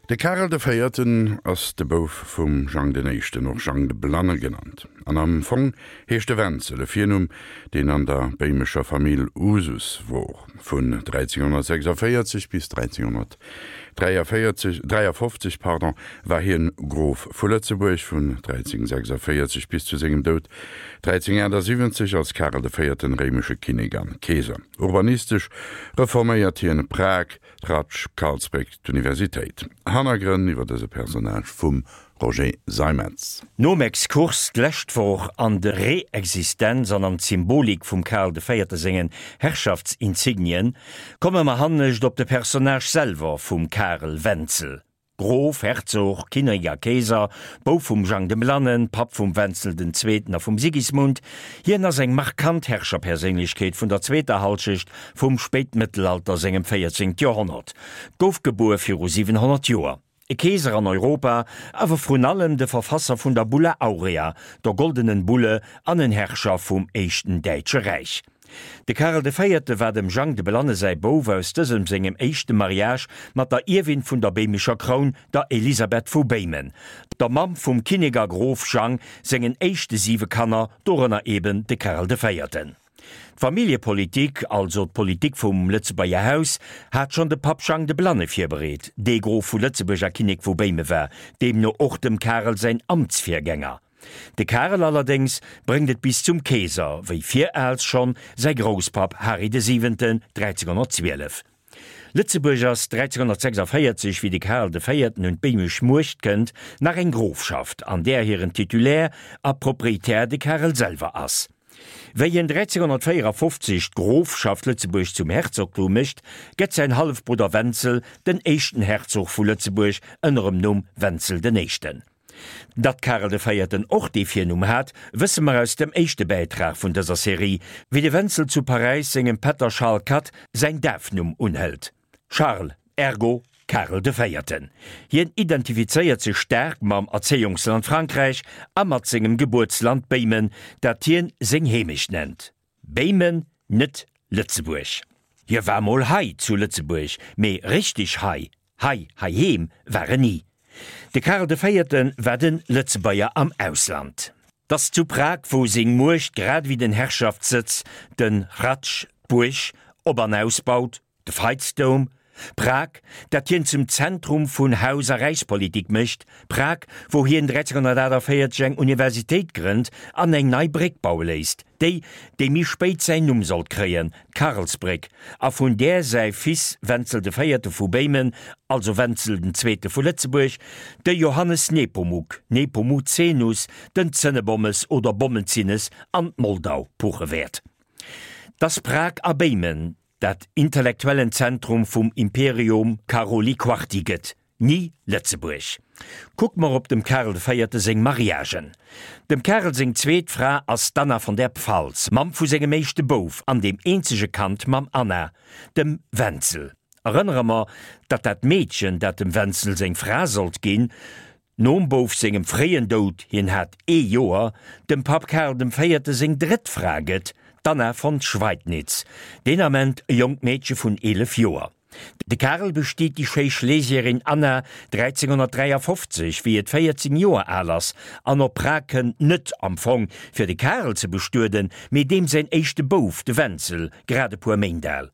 De Karel de Véierten ass de Bouf vum Jang den Éischten, och Jang de Blanne genannt, an am Fong heescht e Wenzel, e Virnumm, deen an der béimescher Famill Usus wor. Vun 1346 bis 1343, 53, pardon, war hien Grof vu Lëtzebuerg, vun 1346 bis zu sengem Doud 1378 als Karel de Véierten réimesche Kinnek an Keeser. Urbanistesch reforméiert hien Prag, Ratsch, Karlsbréck, d'Universitéit. Hannergrënn iwwer dëse Personnage vum Roger Seimetz. Nom Exkurs d'lescht Woch an de Reexistenz an an d'Symbolik vum Karl de Véierte sengen Herrschaftsinsignien, komme mer hannescht op de Personnage selwer vum Karel Wenzel. Grof, Herzog, Kinnek a Keeser, Bouf vum Jang dem Blannen, Papp vum Wenzel den Zweeten a vum Sigismund. Hien ass eng markant Herrscherperséinlechkeet vun der zweeter Halschecht vum Spéitmëttelalter, sengem 14. Joerhonnert. Gouf gebuer viru 700 Joer. E Keeser an Europa, awer vrun allem de Verfasser vun der Bulla Aurea, der Goldenen Bulle, an en Herrscher vum éischten Däitsche Räich. De Karel de Véierte war dem Jang de Blanne säi Bouf aus dësem sengem éischte Mariage mat der Ierwin vun der béimescher Kroun, der Elisabeth vu Béimen, der Mamm vum Kinnek a Grof Jang sengen éischte siwe Kanner, dorënner eben de Karel de Véierten. D'Familljepolitik, also d'Politik vum Lëtzebuerger Haus, hat schonn de Papp Jang de Blanne virbereet, dee Grof vu Lëtzebuerg a Kinnek vu Béime war, deemno och dem Karel säin Amtsvirgänger. De Karel allerdéngs bréngt et bis zum Keeser, wéi viraals schonn säi Grousspapp Hari de Siwenten 1312. Lëtzebuerg ass 1346, wéi de Karel de Véierten un d'béimesch Muecht kënnt, nach eng Grofschaft, an där hiren Titulaire a Proprietär de Karel selwer ass. Wéi hien 1354 d'Grofschaft Lëtzebuerg zum Herzogtum mécht, gëtt säin Hallefbrudder Wenzel den éischten Herzog vu Lëtzebuerg ënner em Numm Wenzel den Éischten. Datt Karel de Véierten och dee Virnumm hat, wësse mer aus dem éischte Bäitrag vun dëser Serie, wéi de Wenzel zu Paräis sengem Pätter Charles Quat säin Dafnumm unhëlt, Charles, ergo Karel de Véierten. Hien identifizéiert sech staark mam Erzéiungsland Frankräich a mat sengem Gebuertsland Béimen, dat hien seng Heemecht nennt. Béimen, net Lëtzebuerg. Hie war mol hei zu Lëtzebuerg, mee richteg hei, hei heiheem war en ni. De Karel de Véierte war de Lëtzebuerger am Ausland. T'ass zu Prag, wou seng Muecht grad ewéi den Herrschaftssëtz, den Hradsch, d'Buerg, op an ausbaut, De Veitsdoum, Prag, dat hien zum Zentrum vun Haus a Räichspolitik mécht, Prag, wou hien 1348 eng Universitéit grënnt an eng nei Bréck baue léisst, déi, déi méi spéit säin Numm sollt kréien, d'Karlsbréck, a vun där säi Fils Wenzel de Véierte vu Béimen, also Wenzel den Zweete vu Lëtzebuerg, de Johannes Nepomuk, Nepomucenus, den Zënnebommes oder Bommenzinnes an d'Moldau puche wäert. T'ass Prag a Béimen, dat intellektuellen Zentrum vum Imperium Caroli Quarti gëtt, ni Lëtzebuerg. Kucke mer op dem Karel de Véierte seng Mariagen. Dem Karel seng zweet Fra ass d'Anna von der Pfalz, Mamm vu sengem éischte Bouf an deem eenzege Kand mam Anna, dem Wenzel. Erënnere mer, datt dat Meedchen, dat dem Wenzel seng Fra sollt ginn, Nom Bouf sengem fréien Doud, hien hat ee Joer, dem Papp Karl dem Véierte seng drëtt Fra gëtt, d'Anna von Schweidnitz, deen Ament e jonkt Meedche vun 11 Joer. De Karel bestiet déi schéi Schlesierin Anna 1353, wéi et 14 Joer al ass, an op Prag kënnt, net am Fong fir de Karel ze bestueden, mee deem säin éischte Bouf, de Wenzel, grad e puer Méint al.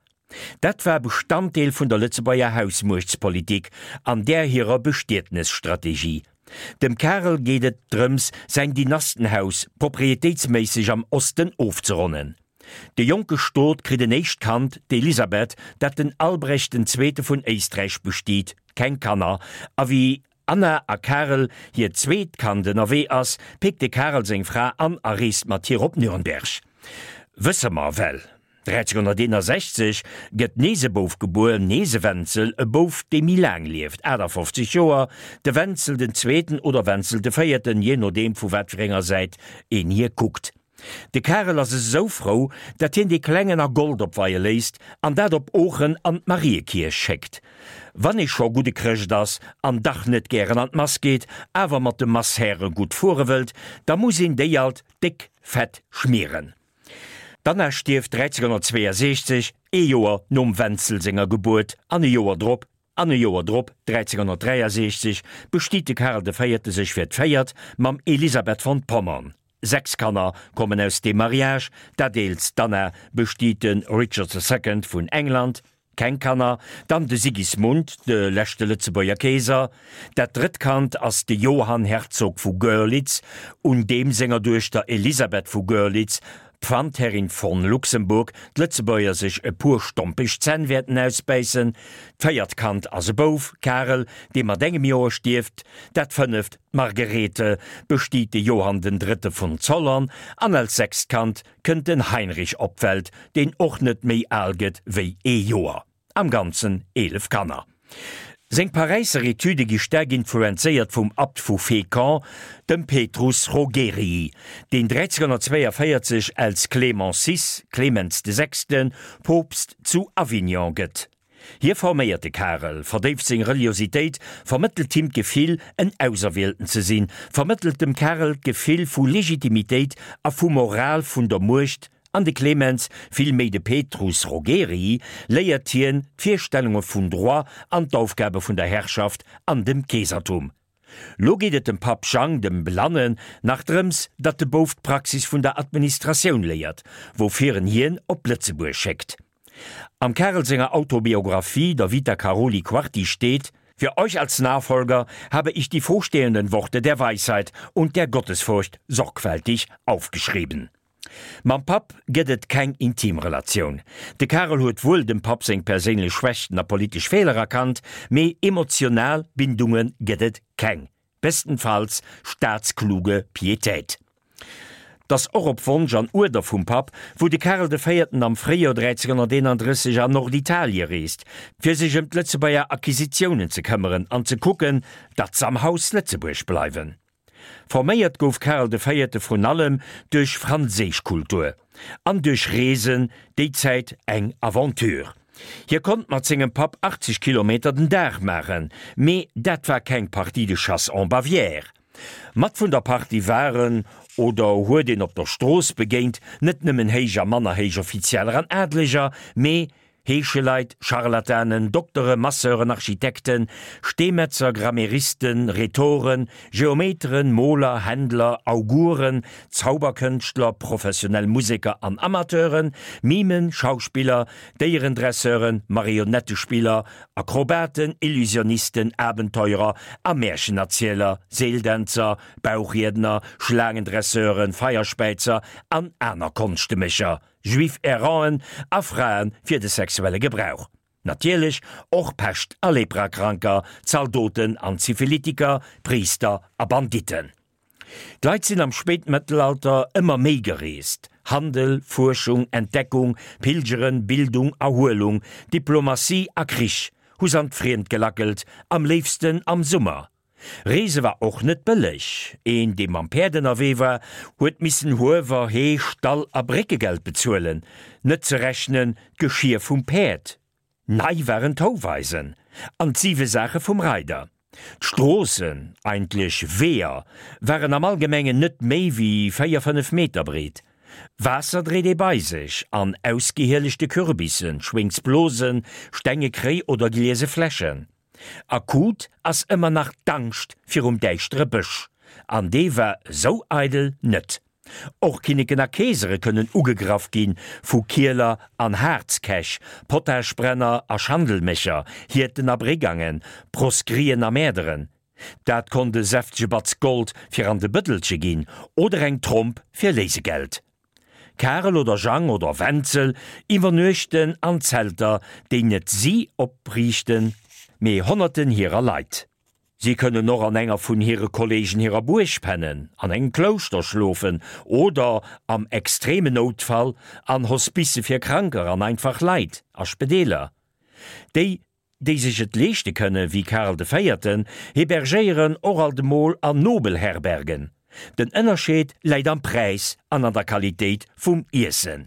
Dat war Bestanddeel vun der Lëtzebuerger Hausmuechtspolitik an där hirer Bestietnesstrategie. Dem Karel geet et drëms, säin Dynastenhaus proprietéitsméisseg am Osten ofzeronnen. De jonke Stot kritt en éischt Kand, d'Elisabeth, dat den Albrecht den Zweete vun Éisträich bestiet, keng Kanner, a wéi Anna a Karel hiert zweet Kand ënnerwee ass, péckt de Karel seng Fra an a reest mat hir op Nürnberg. Wësse mer well. 1361 gëtt nees e Bouf gebuer, nees e Wenzel, e Bouf dee méi laang lieft, 58 Joer, de Wenzel den Zweeten oder Wenzel de Véierten, jee nodeem vu wat fir enger Säit een hir kuckt. De Karel ass esou frou, dat hien dee Klengen a Gold opweie léisst an dat op Oochen an d'Mariekierch schéckt. Wann ee scho gudde Chrëscht ass an dach net gären an d'Mass geet, awer mat de Masshäre gutt fuere wëllt, da muss een déi alt déck fett schmieren. D'Anna stierft 1362, ee Joer nom Wenzel senger Gebuert an e Joer drop. An e Joer drop, 1363, bestiet de Karel de Véierte sech fir d'véiert mam Elisabeth von Pommern. 6 Kanner kommen aus deem Mariage, dat eelst, d'Anna, bestiet de Richard the Second vun England, keng Kanner, dann de Sigismund, de leschte Lëtzebuerger Keeser. Dat drëtt Kand ass de Johann Herzog vu Görlitz, un deem senger Duechter Elisabeth vu Görlitz, Pfandherrin von Luxemburg, d'Lëtzebuerger sech e puer stompeg Zänn wäerten ausbäissen. D'véiert Kand ass e Bouf, Karel, dee mat engem Joer stierft. Dat fënneft, d'Margarethe, bestiet de Johann den Drëtte von Zollern. An als sechst Kand kënnt den Heinrich op d'Welt, deen och net méi al gëtt wéi ee Joer. Am Ganzen 11 Kanner. Seng Paräisser Etüde gi staark influenzéiert vum Abt vu Fécamp, dem Petrus Rogerii, deen 1342 als Clément vi, Clemens de Sechsten, Poopst zu Avignon gëtt. Hie forméiert de Karel, verdéift seng Reliositéit, vermëttelt him d'Gefill, en Auserwielten ze sinn, vermëttelt dem Karel d'Gefill vu Legitimitéit a vu Moral vun der Muecht An de Clemens, vill méi de Petrus Rogerii, léiert hien d'Virstellunge vun Droit an d'Aufgabe vun der Herrschaft an dem Keesertum. Lo geet et dem Papp Jang, dem Blannen, nach drëms, datt de Bouf d'Praxis vun der Administratioun léiert, woufir en hien op Lëtzebuerg schéckt. Am Karel senger Autobiographie, der Vita Karoli Quarti, steet, Für euch als Nachfolger habe ich die vorstehenden Worte der Weisheit und der Gottesfurcht sorgfältig aufgeschrieben. Mam Papp gëtt et keng intim Relatioun. De Karel huet wuel dem Papp seng perséinlech Schwächten a politesch Feeler erkannt, mee emotional Bindunge gëtt et keng, bestenfalls staatskluge Piétät. T'ass och op Wonsch an Uerder vum Papp, wou de Karel de Véierten am Fréijoer 1331 an Norditalie reest, fir sech ëm d'Lëtzebuerger Acquisitiounen ze këmmeren an ze kucken, datt s'am Haus Lëtzebuerg bleiwen. Forméiert gouf Karel de Véierte vrun allem duerch franséisch Kultur an duerch Reesen, déi Zäit eng Aventure. Hie konnt mat sengem Papp 80 Kilometer den Dag maachen, mee dat war keng Partie de chasse en Bavière. Mat vun der Partie waren, oder huet een op der Strooss begéint, net nëmmen héich a manner héich Offizieller an Adleger, mee Heescheleit, Scharlatanen, Doktere, Masseuren, Architekten, Steemetzer, Grammairisten, Rhetoren, Geometeren, Moler, Händler, Auguren, Zauberkënschtler, professionell Museker an Amateuren, Mimen, Schauspiller, Déierendresseuren, Marionettespiller, Akrobaten, Illusionisten, Abenteurer a Märchenerzieler, Seeldänzer, Bauchriedner, Schlaangendresseuren, Feierspäizer an aner Konschtemécher. Juif Erranten a Frae fir de sexuelle Gebrauch. Natierlech och Pescht a Leprakranker, Zaldoten an Syphilitiker, Priister a Banditten. D'Leit sinn am Spéitmëttelalter ëmmer méi gereest, Handel, Fuerschung, Entdeckung, Pilgeren, Bildung, Erhuelung, Diplomatie a Krich hu s'an d'Friemd gelackelt, am léifsten am Summer. Reese war och net bëlleg. Een, dee mam Päerd ënnerwee war, huet missen Huewer, Hee, Stall a Bréckegeld bezuelen, net ze rechnen d'Geschier vum Päerd. Nei waren d'Houweisen an d'siwe Saache vum Reider. D'Stroossen, eigentlech Weeër, waren am Allgemengen net méi wéi 4, 5 Meter breet. Waasser dréit ee bei sech an ausgehielechte Kürbissen, Schwéngsblosen, stenge Kréi oder gliese Fläschen. Akut ass ëmmer nach d'Angscht virum däischtere Bësch, an dee war esou eidel net. Och Kinneken a Keesere kënnen ugegraff gi vu Kieler an Haarzkäch, Potaschbrenner a Schandelmécher, Hierten a Brigangen, Proscrien a Mäerderen. Dat konnt e säftege Batz Gold fir an de Bëddelche ginn oder eng Tromp fir Léisegeld. Karel oder Jang oder Wenzel iwwernuechten an Zelter, déi net si opriichten, mee Honnerten hirer Leit. Si kënnen och an enger vun hire Kollegen hirer Buerg pennen, an engem Klouschter schlofen oder, am extremen Noutfall, an Hospicë fir Kranker an einfach Leit, a Spedeeler. Déi déi sech et leeschte kënne wéi Karl de Véierten, hebergéieren och alt emol an Nobelherbergen. Den Ënnerscheed läit am Präis an an der Qualitéit vum Iessen.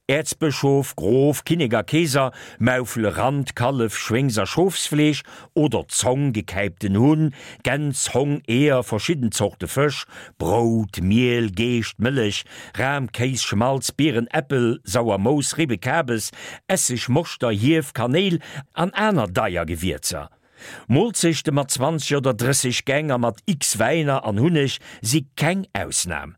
Äerzbëschof, Grof, Kinnek a Keeser maufele Rand, Kallef, Schwéngs a Schofsfleesch oder Zong, gekäipten Hunn, Gäns, Hong, Eeër, verschidden Zorte Fësch, Brout, Miel, Geescht, Mëllech, Ram, Kéis, Schmalz, Bieren, Äppel, sauer Mouss, Ribbe, Kabes, Esseg, Moschter, Hief, Kanéil an aner deier Gewierzer. Moolzechte mat 20 oder 30 Gäng a mat x Wäiner an Hunneg si keng Ausnam.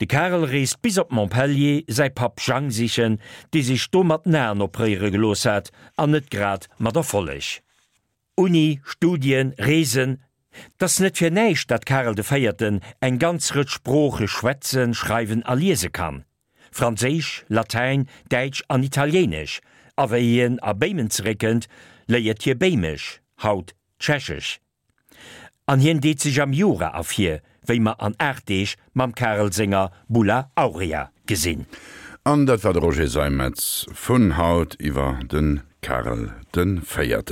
De Karel reest bis op Montpellier säi Papp Jang sichen, dee sech do mat den Aen opréiere gelooss hat, an net grad mat Erfolleg. Uni, Studien, Reesen, 't ass net fir näischt, dat Karel de Véierten eng ganz Rëtsch Sprooche schwätzen, schreiwen a liese kann, Franséisch, Latäin, Däitsch an Italiéinesch, a wéi hien a Béimen zeréckkënnt, léiert hie Béimesch, haut Tschechesch. An hien deet sech am Jura ervir, wéi mer an 8 Deeg mam Karel senger Bulla Aurea gesinn. An dat war de Roger Seimetz vun haut iwwer de Karel de Véierten.